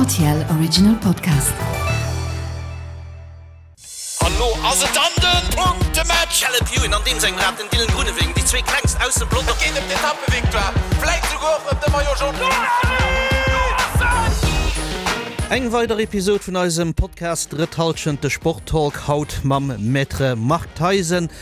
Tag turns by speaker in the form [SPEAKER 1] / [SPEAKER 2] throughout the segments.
[SPEAKER 1] Rtl Original Podcast.
[SPEAKER 2] An lo ass et dann den Punktematch!
[SPEAKER 3] Caleb Ewan an deem sengem Rad, den Dylan Groenewegen, déi zwee klengst aus dem Pelotong.
[SPEAKER 2] Et geet ëm d'Etappevictoire, vläit souguer och ëm de Maillot Jaune.
[SPEAKER 3] Eng weider Episod vun eisem Podcast Drëtt Hallschent, de Sporttalk, haut mam Maître Marc Theisen,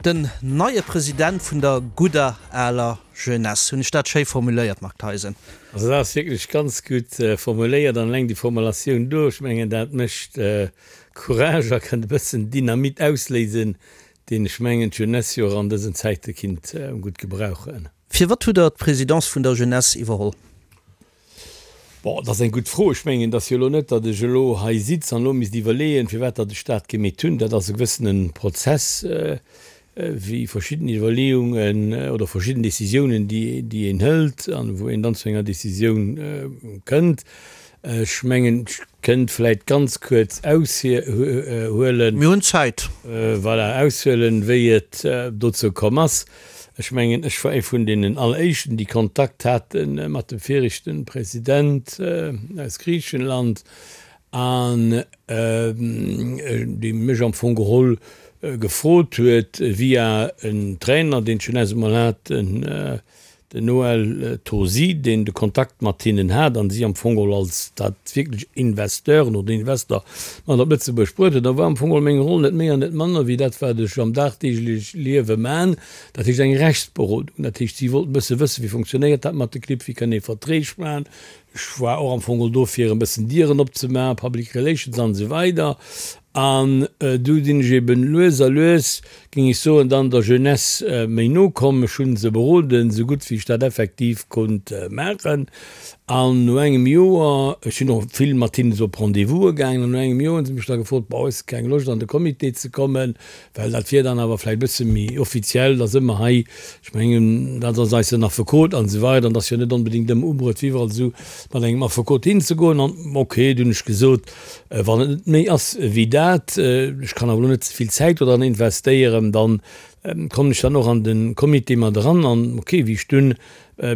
[SPEAKER 3] den neie President vun der gudder aler Jeunesse. Hunn ech dat schéi formuléiert, Marc Theisen?
[SPEAKER 4] Also dat ass wierklech ganz gutt formuléiert an eleng déi Formulatioun do, ech mengen dat mécht Courage a kënnt e bëssen Dynamit ausléisen, deen ech mengen d'Jeunesse jo och an dësen Zäite kinnt gutt gebrauchen.
[SPEAKER 3] Firwat hutt Der d'Presidence vun der Jeunesse iwwerholl?
[SPEAKER 4] Bon, dat ass eng gutt Fro. Ech mengen, et ass jo elo net, datt ech elo hei sitz an elo misst iwwerleeën, firwat datt ech dat gemeet hunn. Dat ass e gewëssene Prozess, wéi verschidden Iwwerleeungen oder verschidden Décisiounen, déi een hëlt an wou een dann zu enger Décisioun kënnt. Ech mengen, ech kënnt vläicht ganz kuerz aushuelen.
[SPEAKER 3] Mir hunn Zäit.
[SPEAKER 4] Voilà, aushuelen, wéi et dozou komm ass. Ech mengen, ech war ee vun deenen Alleréischten, déi Kontakt hate mat dem viregte President aus Griichenland an dee mech am Fong geholl gefrot huet, via en Trainer, deen d'Jeunesse emol hat, den Den Noël Tosi, deen de Kontakt mat hinnen hat an si am Fong geholl als dat wierklech Investeuren oder Investor mat op Lëtzebuerg bruet huet, da war am Fong geholl meng Roll net méi an net manner wéi dat wat ech am dagdeegleche Liewe man, dat heescht eng Rechtsberodung. Dat heescht, si wollten e bësse wëssen, wéi funktionéiert dat mat de Clibb, wéi kënn ee Verträg man. Ech war och am Fong geholl do fir e bëssen Dieren opzemaachen, Public Relations an esou weider. An du sinn ech eben lues a lues, géing ech soen, dann der Jeunesse méi no komm. Ech hunn se beroden, esou gutt wéi ech dat effektiv konnt maachen. An no engem Joer, ech sinn och vill mat hinnen esou op Rendez-vouse gaangen, an no engem Joer hunn se mech da gefrot, Bon, hues de keng Loscht an de Comité ze kommen? Well dat wier dann awer vläicht e bësse méi offiziell, da si mer hei, ech mengen, dat ass eis en Affekot an esou weider, an et ass jo net onbedéngt ëmmer ubruecht, fir iwwerall esou mat engem Affekot hinzegoen. An ok, du hunn ech gesot, wann et net méi ass wéi dat, ech kann awer elo net ze vill Zäit do dran investéieren, dann kommen ech dann och an de Comité mat eran. An ok, wéi ech dunn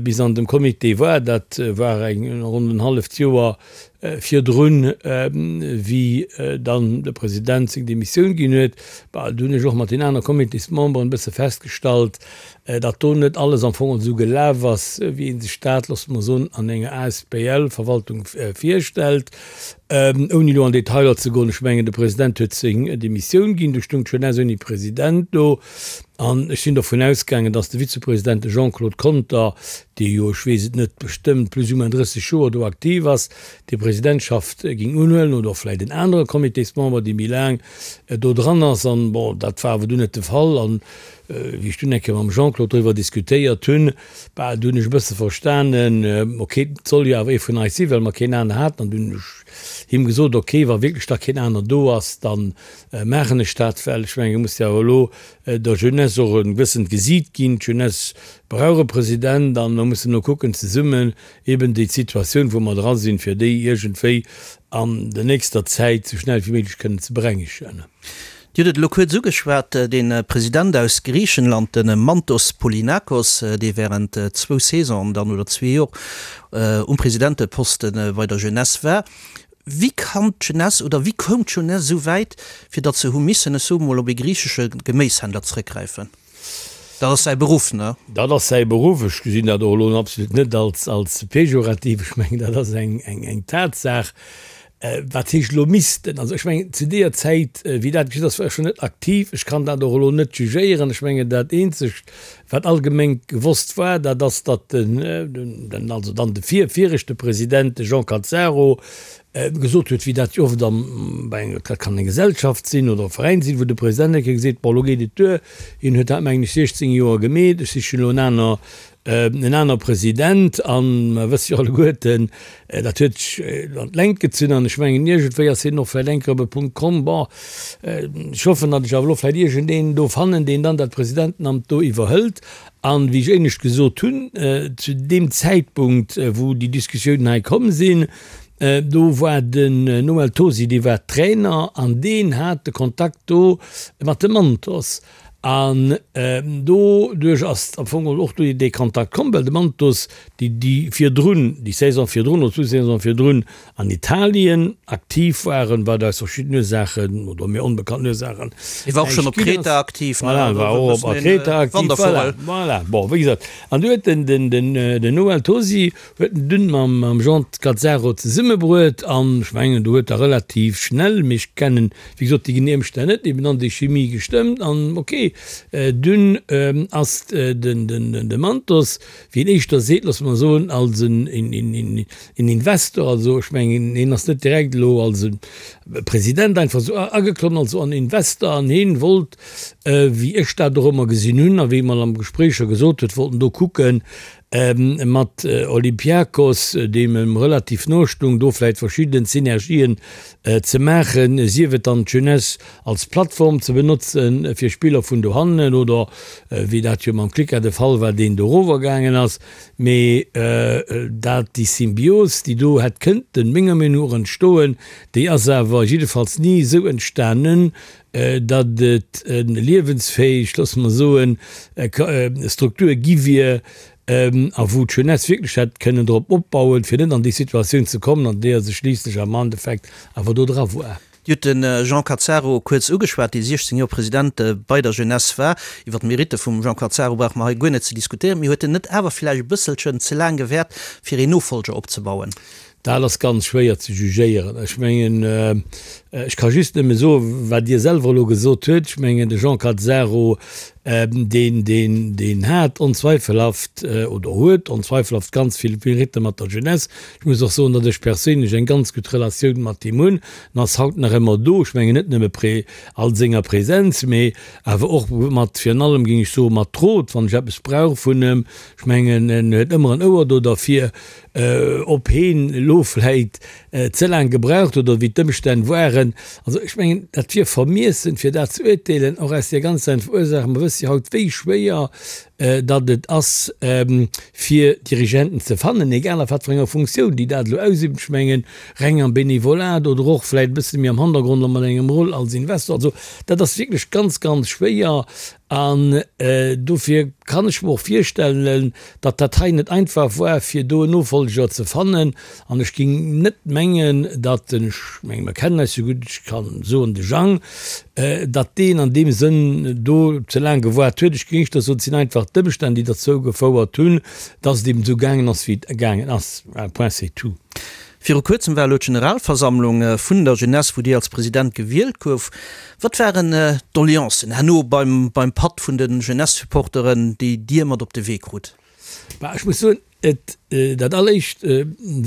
[SPEAKER 4] bis an dem Comité war, dat war eng ronn en halleft Joer virdrun, wéi dann de President seng Demissioun ginn huet, bah, do hunn ech och mat den aner Comitésmemberen e bësse festgestallt, datt do net alles am Fong esou gelaf ass, wéi ee sech dat, loosse mer soen, an enger ASBL-Verwaltung virstellt. Ouni elo an Detailer ze goen, ech mengen, de President huet seng Demissioun ginn, do stoung d'Jeunesse ouni President do. An ech sinn dovun ausgaangen, datt de Vizepresident, de Jean-Claude Conter, dee jo, ech weess et net bestëmmt, plus ou moins 30 Joer do aktiv ass, déi Presidentschaft géing unhuelen oder och vläicht en anere Comitésmember, dee méi laang do dran ass. An, bon, dat war awer dunn net de Fall. An wéi ech dunn eng Kéier mam Jean-Claude doriwwer diskutéiert hunn, bah, du hunn ech e bësse verstanen, ok, et soll jo awer ee vun eis sinn, well mer keen aner haten. An dunn hunn ech him gesot, ok, wa wierklech da keen aner do ass, da maachen ech dat, well ech mengen, et muss jo awer elo der Jeunesse och e gewëssent Gesiit ginn. D'Jeunesse brauch e President an mer mussen elo kucken zesummen eben déi Situatioun, wou mer dra sinn, fir déi iergendwéi an der nächster Zäit esou schnell wéi méiglech kënnen ze berengegen.
[SPEAKER 3] Dir hutt et elo kuerz ugeschwat, de President aus Griichenland, de Mantos Polinakos, dee während zwou Saisonen dann oder zwee Jor um Presidenteposte bei der Jeunesse war. Wéi kann d'Jeunesse oder wéi koum d'Jeunesse esou wäit, fir datt se hu missen, ech soe mol, op ee griichesche Geméishändler zrëckgräifen? Dat ass säi Beruff, ne?
[SPEAKER 4] Dat ass säi Beruff. Ech gesinn dat och elo absolut net als, als pejorativ. Ech mengen, dat ass eng, eng, eng Tatsaach. Wat heescht elo missten? Also ech mengen, zu deeër Zäit, wéi dat geschitt ass, war ech schonn net aktiv. Ech kann dat och elo net jugéieren. Ech mengen, dat eenzegt, wat allgemeng gewosst war, dat ass, datt den, den, also dann de vir, viregte President, de Jean Cazzaro, gesot huet, wéi dat jo oft am, bei enger, dat kann eng Gesellschaft sinn oder e Veräin sinn, wou de President eng Kéier geseet, bon, elo geet et duer, hien huet dat, mengen ech, 16 Joer gemeet, ech sichen elo en aner, en aner President. A mer wësse jo alleguerten, dat huet sech an d'Längt gezunn an ech mengen, iergendwéi ass hien och vläicht eng Kéier op e Punkt komm, bon, ech hoffen, datt ech awer elo vläicht iergendeen do fannen, deen dann dat Presidentenamt do iwwerhëlt. An, wéi ech éinescht gesot hunn, zu deem Zäitpunkt, wou déi Diskussiounen hei komm sinn, do war den Noël Tosi, dee war Trainer an deen hat de Kontakt do mat dem Mantos. An doduerch ass am Fong och do dee Kontakt komm, well de Mantos déi déi virdrun, déi Saison virdrun oder zwou Saisone virdrun an Italien aktiv waren, wat aus verschiddenen Ursaachen oder mir onbekannten Ursaachen
[SPEAKER 3] Hie war och schonn op
[SPEAKER 4] näischt ginn
[SPEAKER 3] Kreta
[SPEAKER 4] ass.
[SPEAKER 3] aktiv, ne?
[SPEAKER 4] Voilà,
[SPEAKER 3] Also
[SPEAKER 4] war
[SPEAKER 3] e
[SPEAKER 4] och op
[SPEAKER 3] bëssen een
[SPEAKER 4] Kreta aktiv, voilà,
[SPEAKER 3] Wandervogel.
[SPEAKER 4] voilà. Bon, wéi gesot, an du huet den, den, den, den Noël Tosi huet en dunn mam, mam Jean Cazzaro zesummebruet an ech mengen, do huet da relativ schnell, mee ech kennen, wéi gesot, déi genee Ëmstänn net, eben an déi Chimie gestëmmt an ok, dunn ass den, den, de Mantos, wéi een éischter seet, loosse mer soen, als en Investor, also ech mengen, hien ass net direkt elo als e President einfach esou ageklommen, also en Investor, an hien wollt, wéi ech dat och ëmmer gesinn hunn a wéi e mer am Gespréich scho gesot huet, wollt en do kucken, mat Olympiakos, deem em relativ no stung, do vläicht verschidden Synergien ze maachen, sief et dann d'Jeunesse als Plattform ze benotzen fir Spiller vun dohannen oder, wéi dat jo mam Klika de Fall war, deen dorower gaangen ass. Mee dat, déi Symbios, déi do hätt kënnten, menger Meenung no, entstoen, déi ass awer jiddefalls ni esou entstanen, datt et en liewensfähig, loosse mer soen, Struktur gi wier a wou d'Jeunesse wierklech hätt kënnen drop opbauen, fir net an déi Situatioun ze kommen, an deeër se schliisslech am Endeffekt awer do dra war.
[SPEAKER 3] Dir hutt de Jean Cazzaro kuerz ugeschwat, dee 16 Joer President bei der Jeunesse war. Iwwer d'Meritte vum Jean Cazzaro brauche mer hei guer net ze diskutéieren. Mee huet en net awer vläicht e bësselchen ze laang gewäert, fir een Nofolger opzebauen?
[SPEAKER 4] Dat ass ganz schwéier ze jugéieren. Ech mengen, ech ka just nëmme soen, wat Dir selwer elo gesot huet. Ech mengen, de Jean Cazzaro, deen, deen, deen hat onzweifelhaft oder huet onzweifelhaft ganz vill Meritte mat der Jeunesse. Ech muss och soen, datt ech perséinlech eng ganz gutt Relatioun mat him hunn. En ass haut nach ëmmer do. Ech mengen net nëmme prä all senger Präsenz, mee awer och mat, virun allem géing ech soen, mat Rot, wann ech eppes brauch vun em. Ech mengen, en huet ëmmer en Ouer do derfir. Ob heen elo vläit ze laang gebraucht huet oder wéi d'Ëmstänn waren, also ech mengen, dat wier vermiessen, fir dat ze uerteelen, och aus där ganz einfachen Ursaach, mer wësse jo haut, wéi schwéier datt et ass, fir Dirigenten ze fannen, egal a wat fir enger Funktioun déi dat elo ausüben. Ech mengen, reng am Benevolat oder och vläit e bësse méi am Hannergrond a mat engem Rôle als Investor. Also dat ass wierklech ganz, ganz schwéier. An dofir kann ech mer och virstellen, datt dat hei net einfach war, fir do en Nofolger ze fannen. An ech géing net mengen, datt den, ech menge mer kennen eis jo gutt, ech kann soen de Jang, datt deen an deem Sënn do ze laang gewaart huet. Ech géing éischter soen, et sinn einfach d'Ëmstänn, déi derzou gefouert hunn, datt et eben esou gaangen ass, wéi et gaangen ass. Point c'est tout.
[SPEAKER 3] Viru kuerzem war elo d'Generalversammlung vun der Jeunesse, wou Dir als President gewielt gouf. Wat waren d'Doleancen herno beim beim Patt vun de Jeunesse-Supporteren, déi Dir mat op de Wee krut?
[SPEAKER 4] Bah, ech muss soen, et, dat alleréischt,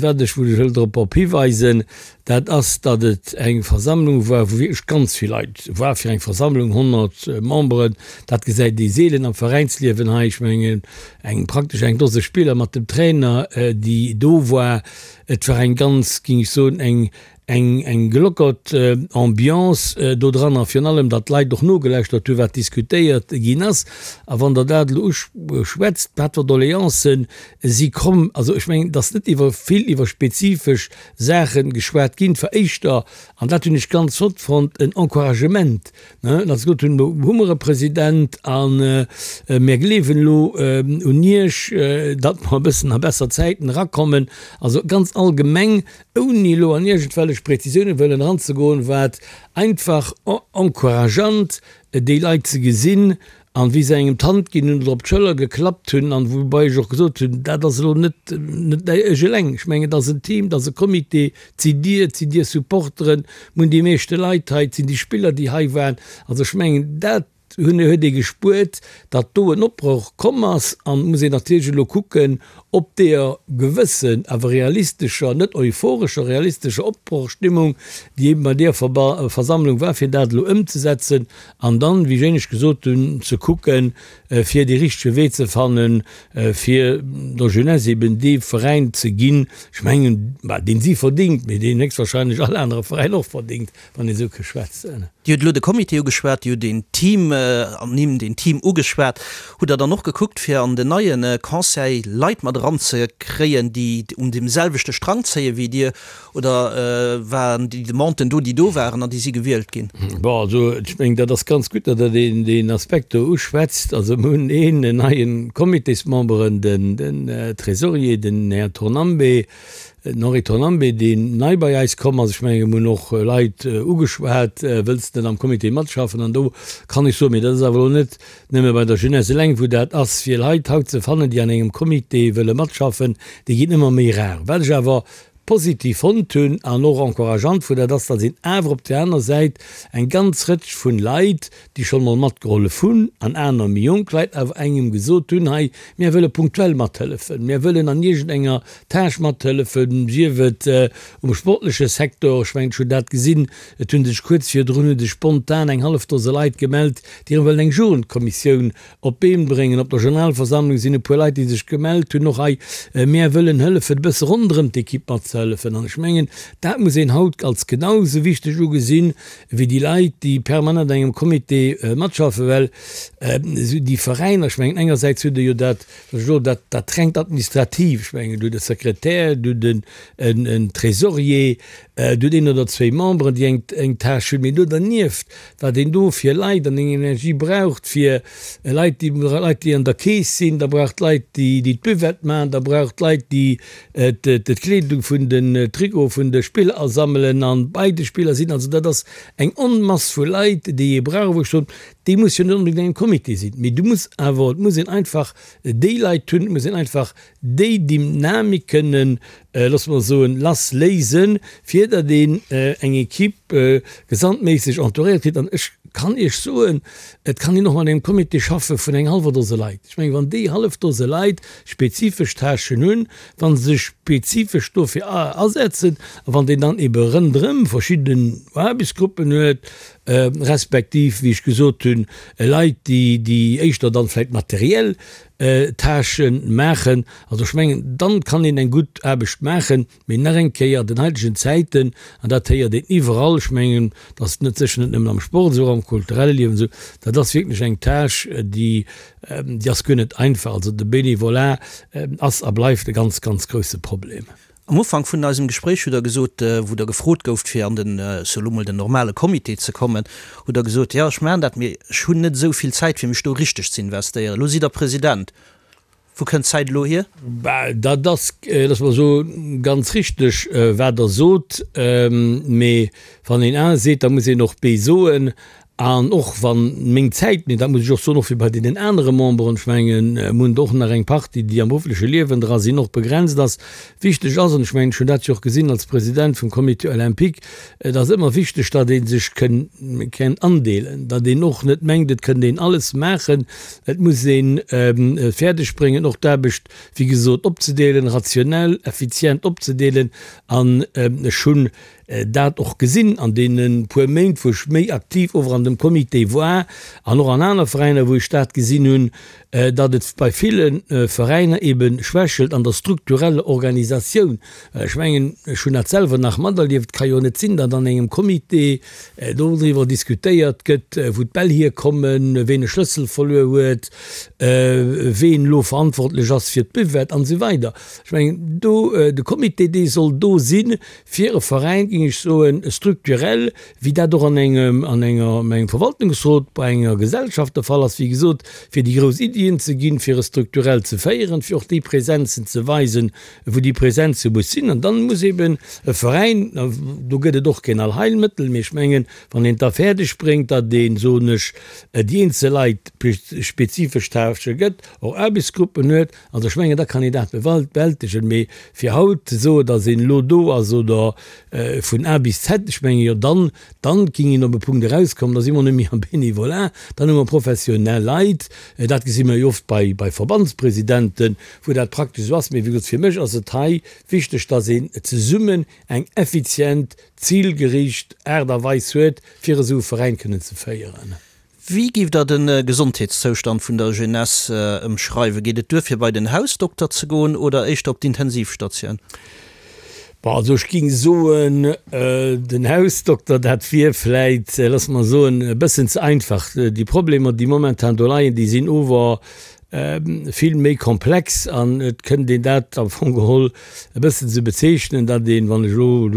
[SPEAKER 4] wat ech, wou ech wëll drop op hiweisen, dat ass, datt et eng Versammlung war, wou wierklech ganz vill Leit war. Fir eng Versammlung, 100 Memberen, dat gesäit ee seelen am Veräinsliewen hei. Ech mengen, eng, praktesch eng Dose Spiller mat dem Trainer, déi do war. Et war eng ganz, géing ech soen, eng, eng, eng gelockert Ambiance do dran a virun allem, datt d'Leit och nogelauschtert hunn, wat diskutéiert ginn ass. A wann Der dat elo uschwätzt, wat fir Doleancen si komm, also ech mengen, et ass net iwwer vill iwwer spezifesch Saache geschwat ginn, et war éischter, an dat hunn ech ganz flott fonnt, en Encouragement, ne, datt se gesot hunn, elo hu mer e President a mir gleewen elo un Iech, datt mer e bëssen a besser Zäiten erakommen. Also ganz allgemeng ouni elo an iergendwellech Präzisioune wëllen eranzegoen, war et einfach encourageant, déi Leit ze gesinn an wéi se engem d'Hand ginn hunn oder op d'Schëller geklappt hunn an woubai ech och gesot hunn, dat ass elo net net ech eleng, ech mengen, et ass en Team, et ass e Comité, et sidd Dir, et sinn Dir Supporteren, mir hunn déi meeschte Leit hei, et sinn déi Spiller, déi hei waren. Also ech mengen, dat hunn huet ee gespuert, datt do en Opbroch komm ass an et muss een natierlech elo kucken, ob deeër gewëssen, awer realistescher, net euphorescher, realistescher Opbrochstimmung, déi eben bei deeër Versammlung war, fir dat elo ëmzesetzen an dann, wéi ech éinescht gesot hunn, ze kucken, fir dee richtege Wee ze fannen, fir der Jeunesse eben dee Veräin ze ginn, ech mengen, bah, deen si verdingt, mee deen héchstwahrscheinlech all anere Veräin och verdingt. wann ee sou ke schwätzen.
[SPEAKER 3] Dir hutt elo de Comité ugeschwat, Dir hutt een Team. Ernimm, deen Team ugeschwat. Hutt Der dann och gekuckt, fir an den neie Conseil Leit mat eranzekréien, déi un deem selwechte Strang zéie wéi Dir? Oder waren déi Demanden do, déi do waren an déi si gewielt ginn?
[SPEAKER 4] Bon, also ech mengen, dat ass ganz gutt, datt Der deen, deen Aspekt do uschwätzt. Also mir hunn een neie Comitésmemberen, den, den Trésorier, den Här Tornambe, den Henri Tornambe, deen nei bei eis komm ass. Ech mengen, mir hunn och Leit ugeschwat, Wëlls de net am Comité matschaffen? An do kann ech soen, mee dat ass awer elo net nëmme bei der Jeunesse eleng, wou dat ass, fir Leit haut ze fannen, déi an engem Comité wëlle matschaffen, déi ginn ëmmer méi rar. Wat ech awer positiv fonnt hunn an och encourageant vu dat ass, datt een awer op där aner Säit eng ganz Rëtsch vun Leit, déi schonn emol matgehollef hunn, an aner méi jonk Leit awer engem gesot hunn, hei, mär wëlle punktuell mathëllefen, mär wëllen an iergendenger Tâche mathëllefen, sief et um sportleche Secteur, ech mengen, ech hunn dat gesinn, et hu sech kuerz virdrun hu sech spontan eng hallef Dose Leit gemellt, déi erëm wëllen eng Jugendkommissioun Op d'Been bréngen. Op der Generalversammlung sinn e puer Leit, déi sech gemellt hunn, och hei, Mär wëllen hëllefen, e bësse ronderëm d'Ekipp matzehëllefen. An ech mengen, dat muss een haut als genau esou wichteg ugesinn, wéi déi Leit, déi permanent an engem Comité matschaffen, well esou déi Veräiner, ech mengen, engersäits hutt Der jo dat, wat ech elo, dat, dat rengt Administrativ, ech mengen, du hutt e Sekretär, du hutt en, en Trésorier, du hutt een oder zwéi Memberen, déi eng, eng Tâche hunn, mee do dernieft, wat een do fir Leit an eng Energie braucht, fir Leit, déi Leit, déi an der Keess sinn, da braucht Leit, déi déi d'Buvette maachen, da braucht Leit, déi d'Kleedung vun den Trikote vun de Spiller asammelen an bei de Spiller sinn. Also dat ass eng Onmass vu Leit, déi ee brauch, wou ech soen, déi muss jo net onbedéngt an engem Comité sinn, mee du muss awer, et muss een einfach déi Leit hunn, et muss een einfach déi Dynamik kënnen, loosse mer soen, lassléisen, fir datt een eng Equipe gesamtméisseg entouréiert kritt. An ech kann Iech soen, et kann een och mat engem Comité schaffe vun eng hallwer Dose Leit. Ech mengen, wann déi hallef Dose Leit spezifesch Tâchen hunn, wa se sech spezifesch dofir asetzen a wann een dann ebe rënderëm verschidden Aarbechtsgruppen huet, respektiv, wéi ech gesot hunn, Leit, déi déi éischter dann vläicht materiell Tâchen maachen. Also ech mengen, dann kann een eng gutt Aarbecht maachen. Mee nach eng Kéier, an den heitegen Zäiten, an dat héiert een iwwerall, ech mengen, dat ass net sécher net nëmmen am Sport esou, och am kulturelle Liewen esou, dat ass wierklech eng Tâche, déi, déi ass guer net einfach. Also de Bénévolat ass a bleift e ganz, ganz grousse Problem.
[SPEAKER 3] Am Ufank vun eisem Gespréich hutt Der gesot, wou Der gefrot gouft, fir an den, ech soe lo mol, den normale Comité ze kommen, hutt Der gesot, jo, ech maachen dat, mee ech hunn net esou vill Zäit, fir mech do richteg ze investéieren. Elo sidd Der President. Wou kënnt d'Zäit elo hier?
[SPEAKER 4] Bah, dat ass, loosse mer soen, ganz richteg, wat Der sot. Mee wann een A seet, da muss een och B soen. An och wann meng Zäit, mee dat muss ech och soen, och wéi bei deenen anere Memberen, ech mengen, mir hunn der och nach eng Partie, déi am beruffleche Liewen dra sinn, och begrenzt ass, wichteg ass, an ech mengen, ech hunn dat jo och gesinn als President vum Comité olympique, et ass ëmmer wichteg, datt ee sech kënn andeelen, datt een och net mengt, et kënnt een alles maachen. Et muss ee fäerdeg bréngen, och d'Aarbecht, wéi gesot, opzedeelen, rationell, effizient opzedeelen. An ech hunn dat och gesinn an deene puer Méint, wou ech méi aktiv ower an dem Comité war an och an aner Veräiner, wou ech dat gesinn hunn, datt et bei ville Veräiner ebe schwächelt an der struktureller Organisatioun. Well ech mengen, ech hunn dat selwer nach materlieft, et ka jo net sinn, datt an engem Comité doriwwer diskutéiert gëtt, wou d'Bäll hierkommen, ween e Schlëssel verluer huet, ween elo verantwortlech ass fir d'Buvette an esou weider. Ech mengen, do, de Comité, dee soll do sinn, Fir e Veräin, géing ech soen, structurel, wéi dat och an engem, an enger, an engem Verwaltungsrot bei enger Gesellschaft der Fall ass, wéi gesot, fir déi grouss Iddien ze ginn, fir e strukturell ze féieren, fir och déi Präsenzen ze weisen, wou déi Präsenze muss sinn. An dann muss eben e Veräin, do gëtt et och keen Allheilmëttel, mee ech mengen, wann een et da fäerdeg bréngt, datt een, soen ech, déi eenzel Leit spezifesch Tâchë gëtt, och Aarbechtsgruppen huet, Also ech mengen, da kann een dat bewältegen. Mee fir haut ze soen, datt een elo do ass oder vun A bis Z, ech menge jo, dann, dann géing een op e Punkt erauskommen, da si mer net méi am Bénévolat, dann hu mer professionell Leit. Dat gesi mer jo oft bei, bei Verbandspresidenten, wou dat praktesch esou ass. Mee wéi gesot, fir mech ass et hei wichteg, datt een zesummen eng effizient, zilgeriicht Aart a Weis huet, fir esou e Veräin kënnen ze féieren.
[SPEAKER 3] Wéi giff der de Gesondheetszoustand vun der Jeunesse ëmschreiwen? Geet et duer fir bei den Hausdokter ze goen oder éischter op d'Intensivstatioun?
[SPEAKER 4] Bon, also ech géing soen, den Hausdokter, dat wier vläit, loosse mer soen, e bëssen ze einfach. Déi Problemer, déi momentan do leien, déi sinn ower vill méi komplex an et kënnt een dat am Fong geholl e bëssen esou bezeechnen, datt een, wann ech elo,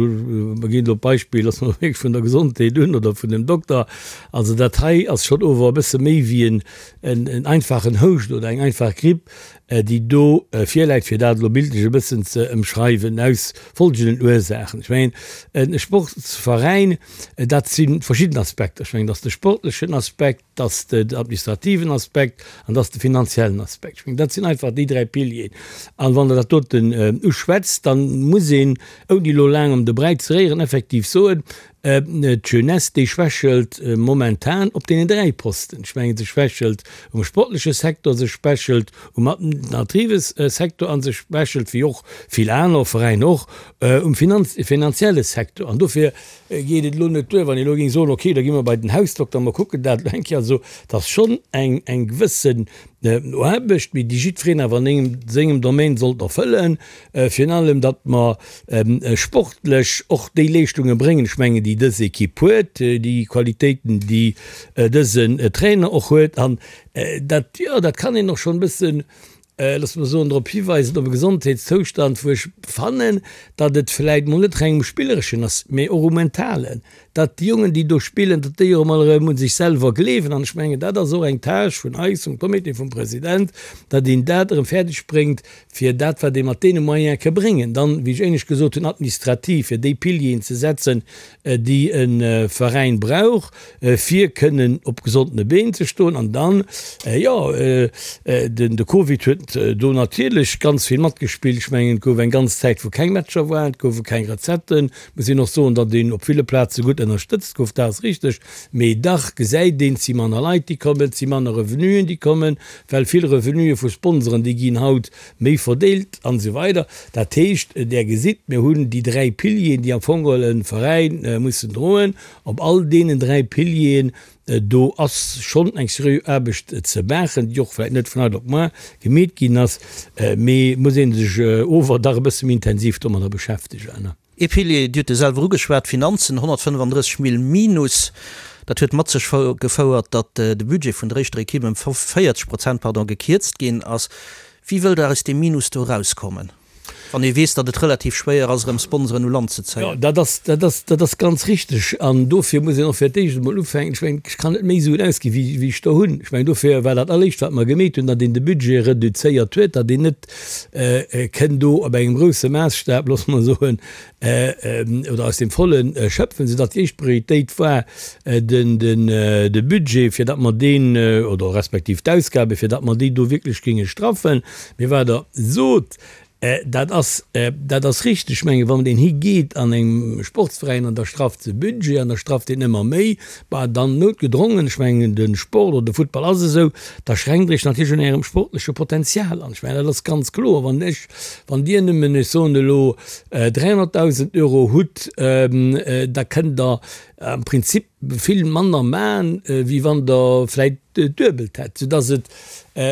[SPEAKER 4] mer ginn elo d'Beispill, loosse mer wierklech vun der Gesondheet un oder vun dem Dokter, also dat hei ass schonn ower e bësse méi wéi en einfachen Houscht oder eng einfach Gripp. déi do virläit, fir dat elo bildlech e bëssen ze ëmschreiwen, aus folgenden Ursaachen. Ech mengen, e Sportsveräin, dat si verschidden Aspekter. Ech mengen, dat ass de sportlechen Aspekt, dat ass den administrativen Aspekt an dat ass de finanziellen Aspekt. Ech mengen, dat sinn einfach déi dräi Pilieren. An wann Der dat doten uschwätzt, da muss een, ouni elo laang ëm de Bräi ze réieren, effektiv soen, D'Jeunesse, déi schwächelt momentan op deenen 3 Posten. Ech mengen, se schwächelt um sportleche Secteur, se schwächelt um administrative Secteur a se schwächelt, wéi och vill aner Veräiner och, um finanzielle Secteur. An dofir geet et elo net duer, wann ee elo géing soen, okay, da gi mer bei den Hausdokter, mer kucken dat elo eng Kéier. Also, et ass schonn eng gewëssen Aarbecht, mee déi jiddwereen awer an sengem Domaine sollt erfëllen. Virun allem, datt mer sportlech och déi Leeschtunge bréngen, ech mengen, déi dës Ekipp huet, déi Qualitéiten, déi dësen Trainer och huet. An dat, jo, dat kann een och schonn e bëssen, loosse mer soen, drop hiweisen, op e Gesondheetszoustand, wou ech fannen, datt et vläicht mol net reng um Spillereschen ass, mee och um Mentalen. datt déi Jongen, déi do spillen, datt déi och emol erëm u sech selwer gleewen. An ech mengen, dat ass och eng Tâche vun eis, vum Comité, vum President, datt een dat erëm fäerdeg bréngt, fir dat, wat ee mat deene Moyene ka bréngen, dann, wéi ech éinescht gesot hunn, administrativ, fir déi Pilieren ze setzen, déi e Veräin brauch, fir kënnen op gesondene Been ze stoen. An dann, jo, de Covid huet do natierlech ganz vill matgespillt. Ech mengen, et gouf eng ganz Zäit, wou keng Matcher waren, et goufe keng Recetten, Muss een och soen, datt een op ville Plaze gutt ënnerstëtzt gouf, dat ass richteg, mee dach gesäit een, et si manner Leit, déi kommen, et si manner Revenuen, déi kommen, well vill Revenuë vu Sponsoren, déi ginn haut méi verdeelt an esou weider. Dat heescht, Der gesitt, mir hunn déi dräi Pilieren, déi am Fong geholl e Veräin mussen droen. Op all deenen dräi Pilieren Do ass schonn eng seriö Aarbecht ze maachen, déi och vläicht net vun haut op muar gemeet ginn ass, mee muss ee sech ower dach e bësse méi intensiv domadder beschäftegen.
[SPEAKER 3] Ee Pilier, Dir hutt e selwer ugeschwat, d'Finanzen, 135 Mill Minus. Dat huet mat sech gefouert, datt de Budget vun der éischter Equipe ëm 40 Prozent, pardon, gekierzt ginn ass. Wéi wëllt Der aus deem Minus do erauskommen? Wann ee weess, datt et relativ schwéier ass, erëm Sponsoren u Land ze
[SPEAKER 4] zéien. Jo, dat ass, dat ass, dat ass ganz richteg. An dofir muss een och fir d'éischt emol ufänken. Ech mengen, ech kann net méi Suen ausginn, wéi, wéi ech der hunn. Ech mengen, dofir war dat Alleréischt, wat mer gemeet hunn, datt een de Budget reduzéiert huet, datt een net kënn do op engem grousse Maassstab, loosse mer soen, oder aus dem Volle schöpfen, soudatt déi éischt Prioritéit war den, den, de Budget, fir datt mer deen, oder respektiv d'Ausgaben, fir datt mer déi do wierklech géinge straffen. Mee wat Der sot, dat ass, dat ass richteg. Ech mengen, wann een higeet an engem Sportsveräin an da strafft se Budget an da strafft een ëmmer méi, bah, dann noutgedrongen, ech mengen, de Sport oder de Futtball ass esou, da schränkt Der Iech natierlech un Ärem sportleche Potenzial an. Ech mengen, dat ass ganz kloer. Wann ech, wann Dir nëmmen, ech soen elo, 300.000 Euro hutt, da kënnt Der am Prinzip vill manner man, wéi wann Der vläit d'Duebelt hätt, soudass et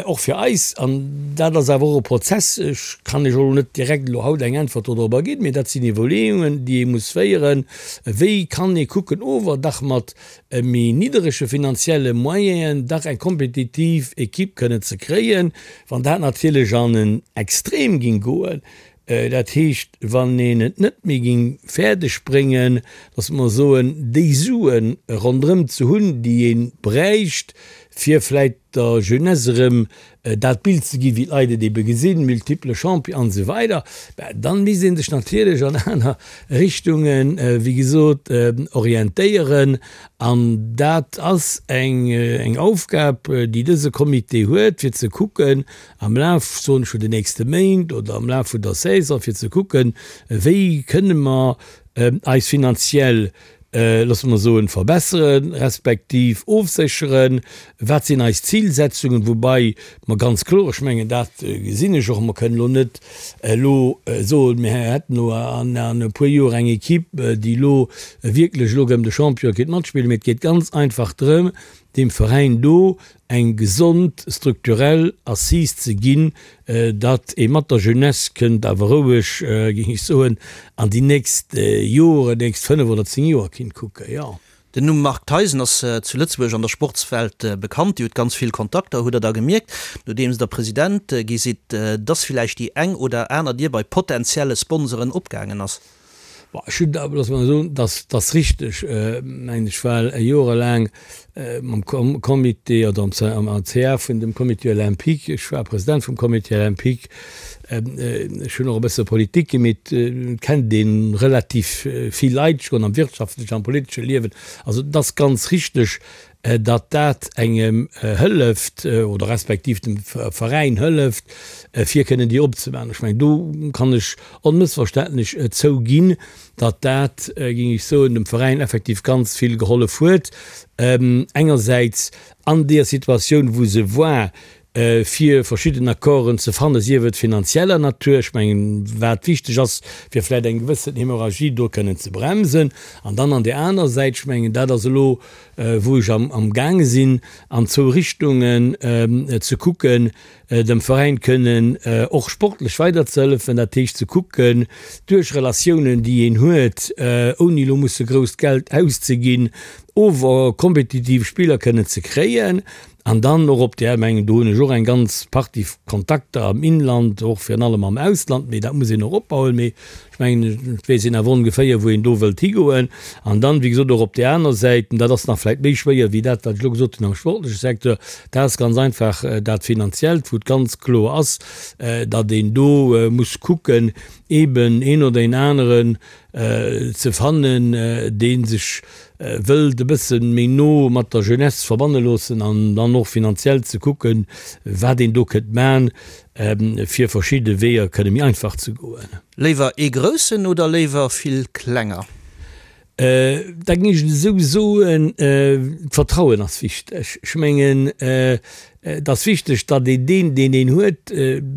[SPEAKER 4] och fir eis, an dat ass awer och e Prozess, ech kann Iech elo net direkt elo haut eng Äntwert dodrobber ginn, mee dat sinn Iwwerleeungen, déi ee muss féieren, wéi kann ee kucken, ower dach mat méi nidderege finanzielle Moyenen dach eng kompetitiv Equipe kënnen ze kréien, wann dat natierlech an en Extrem ging goen, Dat heescht, wann een et net méi géing fäerdeg bréngen, dass mer soen, déi Sue ronderëm ze hunn, déi ee bräicht, fir vläicht der Jeunesse erëm dat Bild ze ginn, wéi d'Leit et ebe gesinn, multiple Champion an esou weider, ben dann misst ee sech natierlech an aner Richtungen, wéi gesot, orientéieren. An dat ass eng Aufgab, déi dëse Comité huet, fir ze kucken, am Laf, soen ech, vun den nächste Méint oder am Laf vun der Saison, fir ze kucken, wéi kënne mer eis finanziell, loosse mer soen, verbesseren, respektiv ofsécheren, wat sinn eis Zilsetzungen, woubai mer ganz kloer, ech mengen, dat gesinn ech och, mer kënnen elo net elo soen, mir hätten elo an e puer Joer eng Equipe, déi elo wierklech elo erëm de Champion kéint matspillen, mee et geet ganz einfach drëm, Deem Veräin do eng gesond strukturell Assise ze ginn, datt ee mat der Jeunesse kënnt awer roueg, géing ech soen, an déi nächst Joren, nächst 5 oder 10 Joer kinnt kucken, jo.
[SPEAKER 3] Den Numm Marc Theisen ass zu Lëtzebuerg an der Sportswelt bekannt. Dir hutt ganz vill Kontakter. Hutt Der da gemierkt, nodeems Der President gi sidd, dass villäicht déi eng oder aner Dier bei potentielle Sponsoren opgaangen ass?
[SPEAKER 4] Bon, ech hunn, loosse mer soen, dass ass richteg, mengen ech, well jorelaang mam Comité oder am CA vun dem Comité olympique, ech war President vum Comité olympique, ech hunn och e bësse Politik gemeet, et kennt ee relativ vill Leit schonn am wirtschaftlechen, am politesche Liewen. Also et ass ganz richteg, datt dat engem hëlleft oder respektiv dem Veräin hëlleft, fir kënnen déi opzemaachen. Ech mengen, do kann ech onmëssverständlech zouginn, datt dat, géing ech soen, dem Veräin effektiv ganz vill gehollef huet, engersäits an deeër Situatioun, wou se war, fir verschidden Accorden ze fannen, sief et finanzieller Natur, ech mengen, wat wichteg ass, fir vläicht eng gewëssen Hémorragie do kënnen ze bremsen, an dann an där aner Säit, ech mengen, dat ass elo, wou ech amgaange sinn, an zwou Richtungen ze kucken, dem Veräin kënnen och sportlech weiderzehëllefen, dat heescht ze kucken, duerch Relatiounen, déi een huet, ouni elo musse grousst Geld auszeginn, ower kompetitiv Spiller kënnen ze kréien. An dann och op där, mengen, do hunn ech och eng ganz Partie Kontakter am Inland, och virun allem am Ausland, mee dat muss een och opbauen. Mee ech mengen, et weess een awer ongeféier, wou een do wëllt higoen. An dann, wéi gesot, och op där aner Säit, an dat ass nach vläicht méi schwéier wéi dat, wat ech elo gesot hunn am sportleche Secteur, dat ass ganz einfach dat Finanziellt, wou et ganz kloer ass, datt een do muss kucken, eeben een oder een aneren ze fannen, dee sech wëllt e bësse méi no mat der Jeunesse verbanne loossen an dann och finanziell ze kucken, wat een do kënnt man, fir verschidde Weeër kënne méi einfach ze goen.
[SPEAKER 3] Léiwer ee groussen oder léiwer vill klenger?
[SPEAKER 4] Da géing ech et esou soen, d'Vertrauen ass wichteg. Ech mengen, et ass wichteg, datt een deen, deen een huet,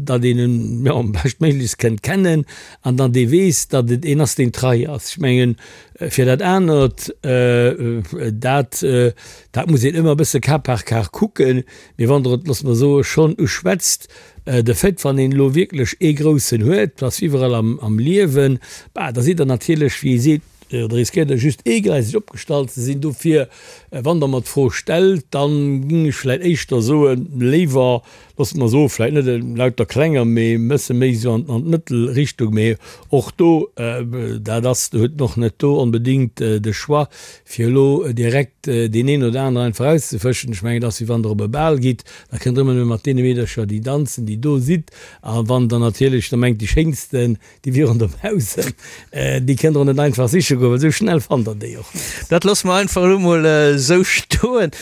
[SPEAKER 4] datt een en, jo, beschtméiglechst kënnt kennen an datt ee weess, datt et een ass, deen trei ass. Ech mengen, fir dat anert, dat, dat muss een ëmmer e bësse cas par cas kucken. Mee wann Der et, loosse mer soen, schonn uschwätzt, de Fait, wann een elo wierklech ee Groussen huet, dat ass iwwerall am Liewen, bah, da sidd Der natierlech, wéi ee seet, Oder riskéiert Der just eegleiseg opgestallt ze sinn? Dofir, wann Der mer d'Fro stellt, da géing ech vläicht éischter soen, léiwer, loosse mer soen, vläicht net lauter klenger, mee e bësse méi esou an d'Mëttelrichtung. Mee och do, dat ass, huet en och net do onbedéngt de Choix, fir elo direkt deen een oder aneren einfach erauszefëschen. Ech mengen, et ass wéi wann Der op e Bal gitt, da kënnt Der ëmmer nëmme mat deene Meedercher, déi danzen, déi do sidd. A wann Der natierlech da mengt, déi schéinsten, Déi wieren dobaussen, déi kënnt der och net einfach siche goen, well esou schnell fannt der déi och net.
[SPEAKER 3] Dat loosse mer einfach elo mol esou stoen.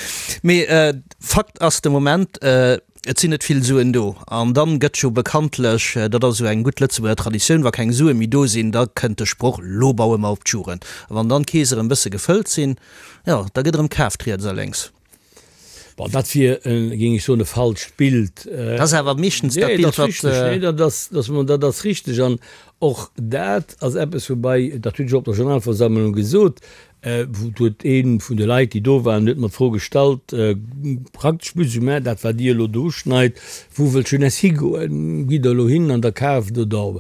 [SPEAKER 3] Mee Fakt ass de Moment, et sinn net vill Suen do. An dann gëtt jo bekanntlech, dat ass esou eng gutt Lëtzebuerger Traditioun, wa keng Sue méi do sinn, da kënnt de Sproch, Lo baue mer op d'Jugend. A wann dann d'Keese erëm bësse gefëllt sinn, jo, da gëtt erëm kaaft riets a lénks.
[SPEAKER 4] Bon, dat wier, géing ech soen, e falscht Bild.
[SPEAKER 3] Dat ass awer meeschtens dat Bild, wat.
[SPEAKER 4] Nee, dat ass, dat ass richteg. An och dat ass eppes, woubäi, dat hunn ech och op der Generalversammlung gesot, wou huet ee vun de Leit, déi do waren, huet mer d'Fro gestallt, praktesch plus ou moins dat, wat Dir elo do uschneit, Wou wëllt d'Jeunesse higoen? Gitt Der elo hin an der kaaft oder,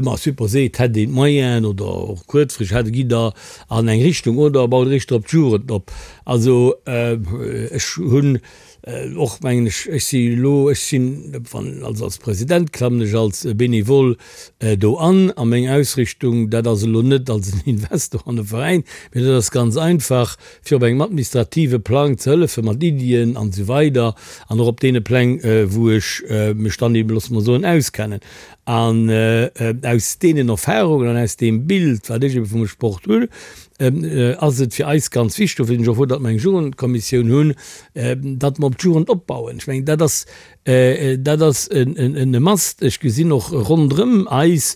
[SPEAKER 4] ma supposé et hätt een d'Moyenen oder och kuerzfristeg hätt, gitt Der an eng Richtung oder baut Der éischter op d'Jugend op? Also ech hunn och, mengen ech, ech si elo, ech sinn, wann, also als President klammen ech als Bénévole do an a meng Ausrichtung, dat ass elo net als en Investor an e Veräin, mee dat ass ganz einfach, fir op engem administrative Plang ze hëllefe mat Iddien an esou weider an och op deene Pläng, wou ech mech dann eben, loosse mer soen, auskennen. An aus deenen Erfahrungen an aus deem Bild, wat ech ebe vum Sport hunn, ass et fir eis ganz wichteg, dofir sinn ech och frou, datt mer eng Jugendkommissioun hunn, datt mer op d'Jugend opbauen. Ech mengen, dat ass, dat ass e Must. Ech gesinn och ronderëm eis,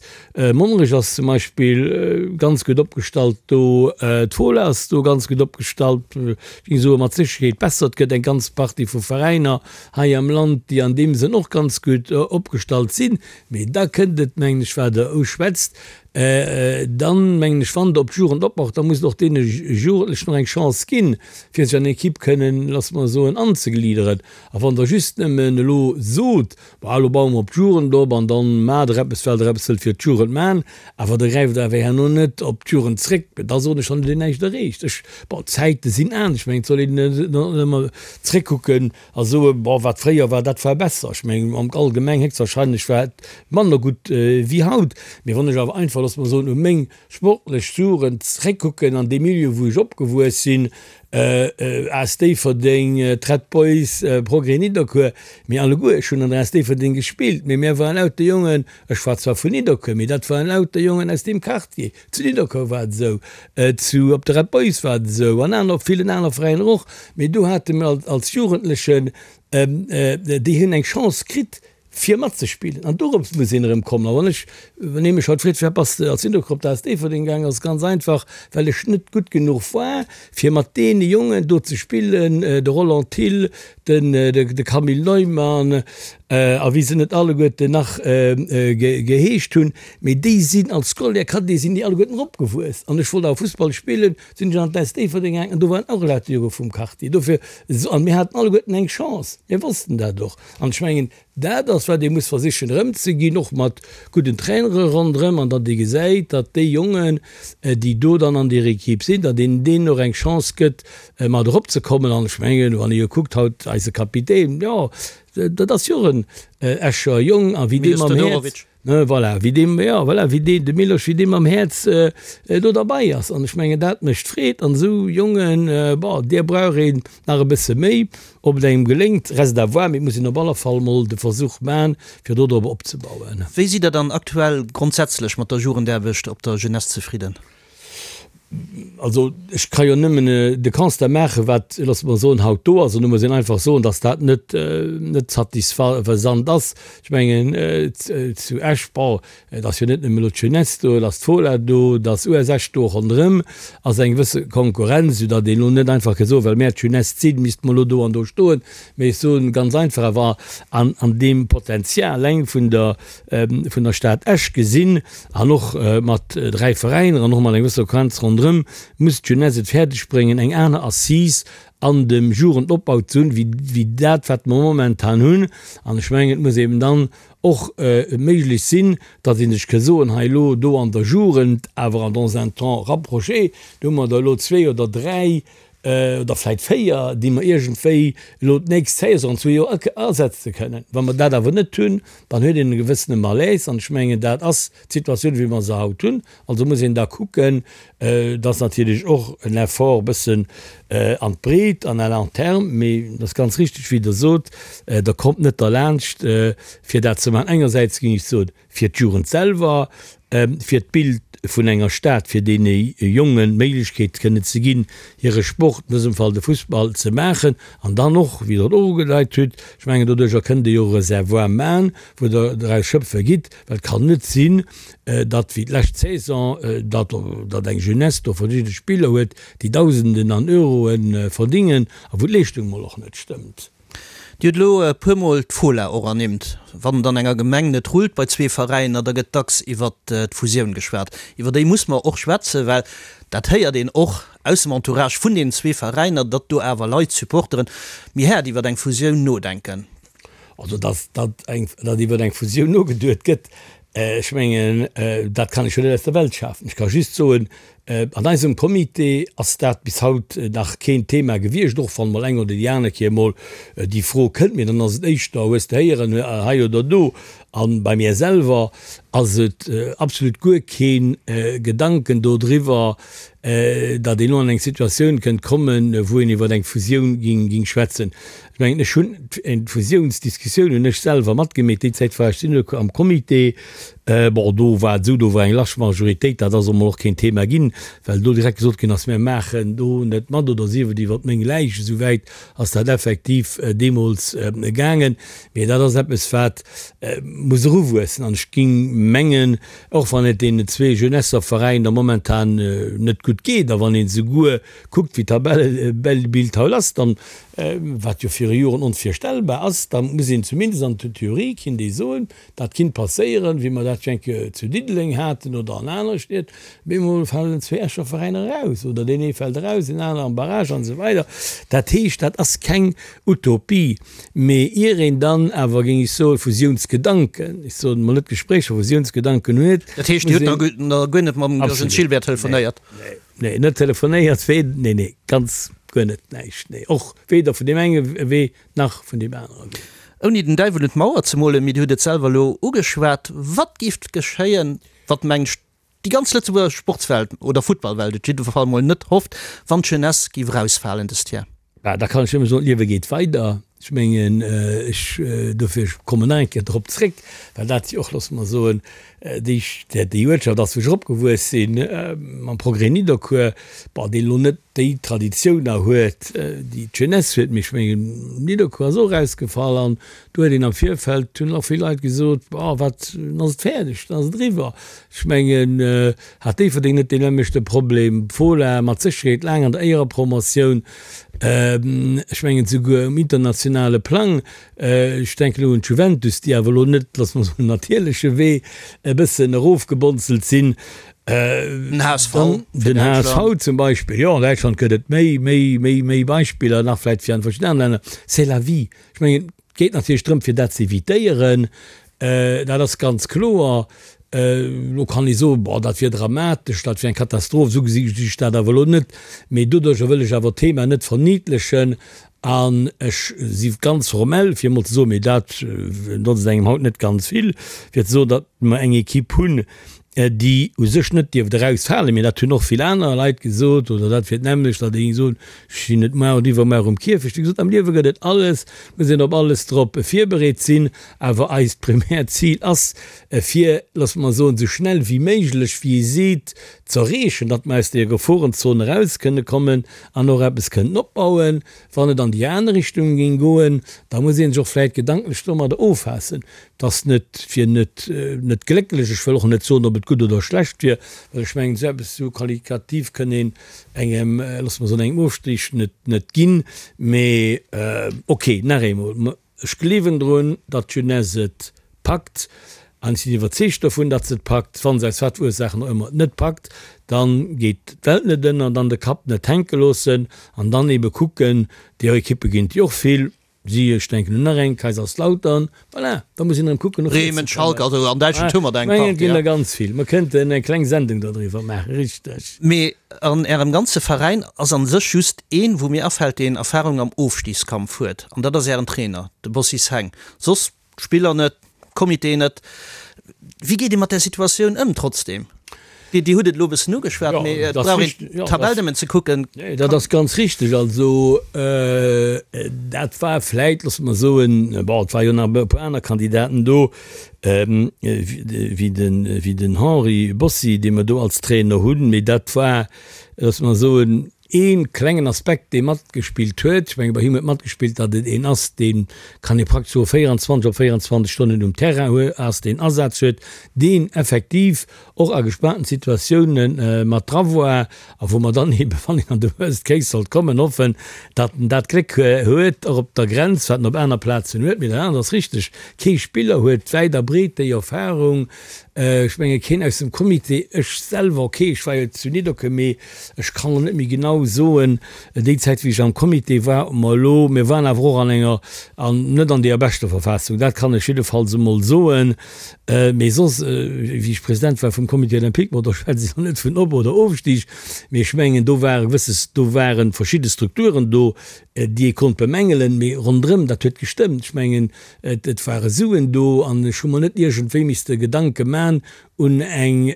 [SPEAKER 4] Monnerech ass zum Beispill ganz gutt opgestallt do, d'Fola ass do ganz gutt opgestallt, ech géing soe mat Sécherheet besser. Et gëtt eng ganz Partie vu Veräiner hei am Land, déi an deem Sënn och ganz gutt opgestallt sinn. Mee da kënnt et, mengen ech, wat Der uschwätzt. Dann, mengen ech, wann Der op d'Jugend opbaut, da musst Der och deene Jugendlechen och eng Chance ginn, fir sech an eng Equipe kënnen, loosse mer soen, anzegliederen. A wann Der just nëmmen elo sot, Bah, elo baue mer op d'Jugend op an dann maacht Der eppes, well Der eppes wëllt fir d'Jugend maachen, awer Der gräift awer herno net op d'Jugend zréck, da soen ech, dann hutt Dir näischt erreecht. Ech, bon, d'Zäite sinn anescht. Ech mengen, et soll een net ëmmer zréckkucken A soe, Bon, wat fréier war, dat war besser. Ech mengen, am Allgemeng héchstwahrscheinlech war et manner gutt wéi haut. Mee wann ech awer einfach, loosse mer soen, u meng sportlech Jugend zréckkucken, an deem Milieu, wou ech opgewuess sinn, AS Déifferdeng, d'Red Boys, Progrès Nidderkuer, mir alleguer, ech hunn an der AS Déifferdeng gespillt, mee mir waren lauter Jongen, ech war zwar vun Nidderkuer, mee dat waren lauter Jongen aus deem Quartier. Zu Nidderkuer war et esou, zu op de Red Boys war et esou an aner op villen aner Veräiner och. Mee do hate mir als Jugendlechen, déi hunn eng Chance kritt fir matzespillen an dorops muss een erëm kommen. A wann ech, wann ee mech haut freet, firwat bass de als Nidderkuer op d'AS Déifferdeng gaangen, ass et ganz einfach, well ech net gutt genuch war fir mat deene Jongen do ze spillen, de Roland Thill, den de Camille Neumann a wéi se net alleguerten nach geheescht hunn, mee déi sinn als Scolaire Cadet sinn déi alleguerten eropgewuess an ech wollt awer Fussball spillen, sinn ech an d'AS Déifferdeng gaangen an do waren och lauter Jonge vum Quartier. Dofir, an mir haten alleguerten eng Chance, mir wossten dat och an ech mengen, Dat ass, wat ee muss versichen erëmzeginn, och mat gudden Trainere ronderëm, an datt ee gesäit, datt déi Jongen, déi do dann an deer Equipe sinn, datt een deenen och eng Chance gëtt, mat eropzekommen. An ech mengen, wann ee jo kuckt haut, eise Kapitän, jo, dat ass jo och en Escher Jong, a wéi dee mam Häerz, voilà, wéi dee, jo, voilà, wéi dee, de Milosch, wéi dee mam Häerz do derbei ass. An ech mengen, dat mécht Freed. An esou Jongen, bon, deer brauch een nach e bësse méi. Ob et engem geléngt, reste à voir, mee et muss een op alle Fall mol de Versuch man, fir do drop opzebauen.
[SPEAKER 3] Wéi sidd Der dann aktuell grondsätzlech mat der Jugendaarbecht op der Jeunesse zefridden?
[SPEAKER 4] Also ech ka jo nëmmen de Constat maachen, wat, loosse mer soen, haut do ass. An do muss een einfach soen, datt dat net, net satisfaisant ass. Ech mengen, zu Esch, bon, Et ass jo net nëmme elo d'Jeunesse do, et ass d'Fola do, et ass US Esch do. Ronderëm ass eng gewësse Konkurrenz, soudatt een elo net einfach ka soen, well mär d'Jeunesse sinn, misste mer elo do an do stoen. Mee ech soen ganz einfach, awer an an deem Potenzial eleng vun der vun der Stad Esch gesinn an och mat 3 Veräiner an och mat enger gewësser Konkurrenz ronderëm, muss d'Jeunesse et fäerdeg bréngen, eng aner Assise an dem Jugendopbau ze hunn, wéi wéi dat, wat mer momentan hunn. An ech mengen, et muss eben dann och méiglech sinn, datt ee sech ka soen, hei elo do an der Jugend, awer an dans un temps rapproché, do hu mer der elo zwee oder dräi oder vläicht véier, déi mer iergendwéi elo d'nächst Saison an zwee Joer ersetze kënnen. Wa mer dat awer net hunn, dann huet een e gewëssene Malaise. An ech mengen, dat ass d'Situatioun, wéi mer se haut hunn. Also muss een da kucken, Et ass natierlech och en Effort e bëssen an d'Breet an à long terme, mee et ass ganz richtig, wéi Der sot, Der kommt net derlaanscht, fir dat ze maachen. Engersäits géing ech soen, fir d'Jugend selwer, fir d'Bild vun enger Stad, fir deene Jongen d'Méiglechkeet kënnen ze ginn, hire Sport, an dësem Fall de Fussball, ze maachen. An dann och, wéi Der et och ugedeit hutt, ech mengen, doduerjer kënnt Dir jo e Reservoir maachen, wou Der draus schöpfe gitt, well et kann net sinn, datt wéi d'lescht Saison, datt datt eng Jeunesse do verschidde Spiller huet, déi Dausenden an Euroe verdingen a wou d'Leeschtung mol och net stëmmt.
[SPEAKER 3] Dir hutt elo e puermol d'Fola och ernimmt. Wann et an enger Gemeng net rullt bei zwee Veräiner, da gëtt dacks iwwert d'Fusioun geschwat. Iwwer déi muss mer och schwätzen, well dat héiert een och aus dem Entourage vun deenen zwee Veräiner, datt do awer Leit, Supporteren, méi haart iwwer eng Fusioun nodenken.
[SPEAKER 4] Also datt datt eng datt iwwer eng Fusioun nogeduet gëtt, ech mengen, dat kann ech jo net aus der Welt schafen. Ech ka just soen, an eisem Comité ass dat bis haut nach keen Thema gewiescht, och wann mol eng oder déi aner Kéier mol déi Fro kënnt, mee dann ass et éischter, hues de héieren, hei oder do. A bei mir selwer ass et absolut guer kee Gedanken dodriwwer, datt een elo an eng Situatioun kënnt kommen, wou een iwwer eng Fusioun ging schwätzen. Ech mengen, ech hunn d'Fusiounsdiskussioun hunn ech selwer matgemeet. Déi Zäit war ech Syndic am Comité. Bon, do war et esou, do war eng large Majoritéit, dat ass emol och keen Thema ginn, well do direkt gesot ginn ass, mir maachen do net mat oder sief et iwwer meng Läich. Esou wäit ass dat effektiv deemools gaangen. Mee dat ass eppes, wat muss eruwuessen. An ech ging mengen, Och wann et deenen zwee Jeunesseveräiner momentan net gutt geet a wann een souguer kuckt wéi d'Tabellebild haut ass, dann. wat jo viru Joren onvirstellbar ass, da muss een zumindest an der Theorie kinnt ee soen, dat kinnt passéieren, wéi mer dat jo eng Kéier zu Diddeleng haten oder an anere Stied, bemol falen zwee Escher Veräiner eraus oder deen ee fält eraus, deen anere am Barrage an esou weider. Dat heescht, dat ass keng Utopie, mee ier een dann awer, géing ech soen, Fusiounsgedanken, ech soen emol net Gespréicher, Fusiounsgedanken huet,
[SPEAKER 3] Dat heescht, Dir hutt nach guer net mam Gilles Gilbert telefonéiert?
[SPEAKER 4] Nee, nee, net telefonéiert, nee, nee, ganz guer net, näischt, nee, och weder vun deem enge Wee nach vun deem anere Wee.
[SPEAKER 3] Ouni den Däiwel un d'Mauer ze molen, mee Dir hutt et selwer elo ugeschwat, Wat géif geschéien, wat mengt déi ganz Lëtzebuerger Sportswelt oder Futtballwelt et jidde Fall mol net hofft, wann d'Jeunesse géif erausfalen dëst Jar?
[SPEAKER 4] Bah, da kann ech nëmme soen, d'Liewe geet weider. Ech mengen, ech, dofir, ech kommen nach eng Kéier drop zréck, well dat jo och, loosse mer soen, déi, déi Uertschaft ass, wou ech eropgewuess sinn, mam Progrès Nidderkuer, bon, deen elo net déi Traditioun nach huet, déi d'Jeunesse huet, mee ech mengen, Nidderkuer ass och erausgefall an do huet een am Virfeld, hunn och vill Leit gesot, Bon, wat, dann ass et fäerdeg, dann ass et eriwwer. Ech mengen, hat Déifferdeng net deen nämmlechte Problem? D'Fola mat Sécherheet laang an der Éierepromotioun, ech mengen souguer um internationale Plang. Ech denken elo un d'Juventus, déi awer elo net, loosse mer soen, natierleche Wee e bëssen erofgebonzelt sinn.
[SPEAKER 3] Den HSV.
[SPEAKER 4] Den HSV zum Beispill, jo. An Däitschland gëtt et méi, méi, méi, méi Beispiller nach vläicht wéi an verschiddenen anere Länner. C'est la vie. Ech mengen, et geet natierlech drëm, fir dat ze evitéieren. Dat ass ganz kloer. Elo kann ee soen, Bon, dat wier dramatesch, dat wier eng Katastroph. Esou gesi ech dat awer elo net. Mee doduercher wëll ech awer d'Thema net verniddlechen. An ech si ganz formell, fir emol ze soen, mee dat notzt engem haut net ganz vill, fir ze soen, datt mer eng Equipe hunn, déi u sech net dierft erausfalen, mee dat hunn och vill aner Leit gesot, oder dat wier d'nämmlecht, datt ee géing soen, ech sinn net muar oder iwwermuar um Kierfecht. Wéi gesot, am Liewe gëtt et alles, et muss een op alles drop virbereet sinn, awer eist primäert Zil ass, fir, loosse mer soen, esou schnell wéi méiglech, wéi ee seet, z'erreechen, datt mer aus deeër Geforenzon eraus kënne kommen an och eppes kënnen opbauen. Wann et an déi aner Richtung géing goen, da muss ee sech och vläicht gedanklech domadder offaassen, Et ass net, wier net, net glécklech. Ech wëll och net soen, ob et gutt oder schlecht wier, well ech mengen, esou eppes esou qualitativ kënn een engem, loosse mer soen, engem Ofstig net, net ginn. Mee ok, nach eemol, ech gleewen drun, datt d'Jeunesse et packt an ech sinn iwwerzeegt dovun, datt se et packt. Wa se aus wat fir Ursaachen och ëmmer et net packt, da geet d'Welt net ënner, dann de Kapp net hänke loossen an dann eebe kucken, déi Ekippe ginn et jo och vill, Si, ech denken un nach eng, Kaiserslautern, voilà, da muss een erëm kucken, no vir ze
[SPEAKER 3] Bremen, Schalke, also an Däitschland hu mer der
[SPEAKER 4] eng Partie. Et ginn der ganz vill. Mer kënnten eng kleng Sendung dodriwwer maachen, richteg.
[SPEAKER 3] Mee an Ärem ganze Veräin ass an sech just een, wou mir afält, deen Erfahrung am Ofstiegskampf huet, an dat ass Ären Trainer, de Bossis Heng. Soss D'Spiller net, Comité net. Wéi geet ee mat där Situatioun ëm trotzdeem? Dir hutt et elo e bëssen ugeschwat, mee et brauch een d'Tabell nëmmen ze kucken.
[SPEAKER 4] Nee, dat ass ganz richteg. Also dat war vläit, loosse mer soen, bon, et war jo nach e puer aner Kandidaten do, wéi den Henri Bossi, dee mer do als Trainer hunn, mee dat war, loosse mer soen, Ee klengen Aspekt, dee matgespillt huet, ech menge bei him huet matgespillt, datt et een ass, dee kann ee praktesch soe 24 op 24 Stonnen um Terrain hue ass, deen Asaz huet, deen effektiv och a gespaanten Situatioune mat dra war a wou mer dann eebe, wann een an de Worst Case sollt kommen, hoffen, datt en dat Gléck huet, och op der Grenz, wat en op aner Plazen huet. Mee dat anert ass richteg, kee Spiller huet wäit a breet déi Erfarung. Ech menge keen aus dem Comité, ech selwer, ok, ech war jo zu Nidderkuer, mee ech kann elo net méi genau soen, déi Zäit wéi ech am Comité war, ob mer elo, mir waren awer och an enger, an net an deeër beschter Verfassung, dat kann ech jiddefalls emol soen. Mee soss, wéi ech President war vum Comité olympique, bon do schwätze ech elo net vun Op oder Ofstig, mee ech mengen do ware gewësse, do ware verschidde Strukturen do, déi ee konnt bemängelen, mee ronderëm, dat huet gestëmmt. Ech mengen, Et ware Suen do an ech hu mer net iergendwéi misste Gedanke man un eng,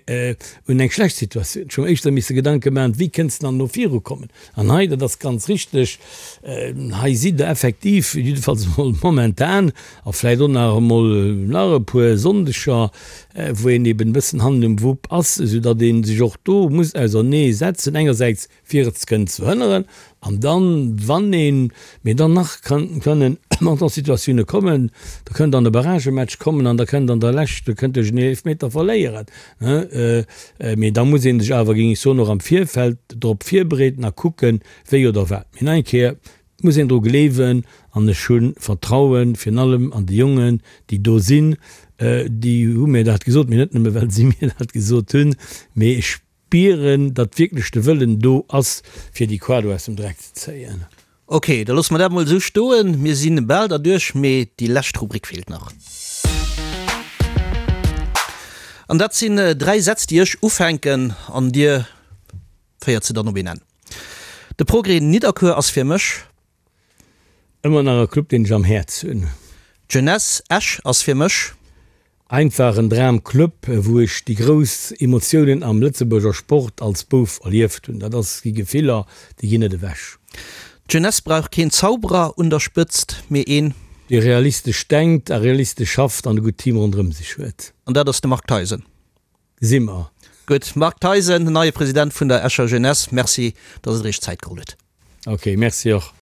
[SPEAKER 4] un eng schlecht Situatioun. Ech hu mer éischter misse Gedanke man, wéi kënnst de dann elo virukommen. An hei, dat ass ganz richteg, hei sidd Der effektiv, jiddefalls emol momentan a vläicht och nach emol nach e puer Sonndeger, wou een eben e bëssen hannen um Wupp ass, esoudatt ee sech och do muss ausernee setzen, engersäits fir et kënnen ze verhënneren, an dann, wann een, mee dann nach kann, kënnen an och Situatioune kommen, da kënnt an e Barragematch kommen an da kënnt an der Lescht, da kënnt duerch en Eelefmeter verléieren, mee da muss ee sech awer, géing ech soen, och am Virfeld drop virbereeden a kucken, wéi oder wat. Mee nach eng Kéier. Et muss een dru gleewen an ech hu Vertrauen, virun allem an déi Jongen, déi do sinn. Déi hu mir dat gesot, mee net nëmme well si mir dat gesot hunn, mee ech spieren, datt wierklech de Wëllen do ass, fir déi Quado aus dem Dreck ze zéien.
[SPEAKER 3] Ok, da loosse mer dat mol esou stoen. Mir si bal derduerch, mee déi lescht Rubrik feelt nach. An dat sinn 3 Sätz, déi ech ufänken an Dir féiert se dann op een Enn. De Progrès Nidderkuer ass fir mech.
[SPEAKER 4] Ëmmer nach e Club deen ech am Häerz hunn.
[SPEAKER 3] D'Jeunesse Esch ass fir mech.
[SPEAKER 4] Einfach en Dramclub, wou ech déi grouss Emotiounen am Lëtzebuerger Sport als Bouf erlieft hunn. Dat ass gi Gefiller, déi ginn net ewech.
[SPEAKER 3] D'Jeunesse brauch keen Zauberer un der Spëtzt, mee een.
[SPEAKER 4] Dee realistesch denkt a realistesch schafft an e gutt Team ronderëm sech huet.
[SPEAKER 3] An dat ass de Marc Theisen.
[SPEAKER 4] Gesi mer.
[SPEAKER 3] Gutt, Marc Theisen, neie President vun der Escher Jeunesse, Merci, datt Der Iech Zäit geholl hutt.
[SPEAKER 4] Ok, Merci och.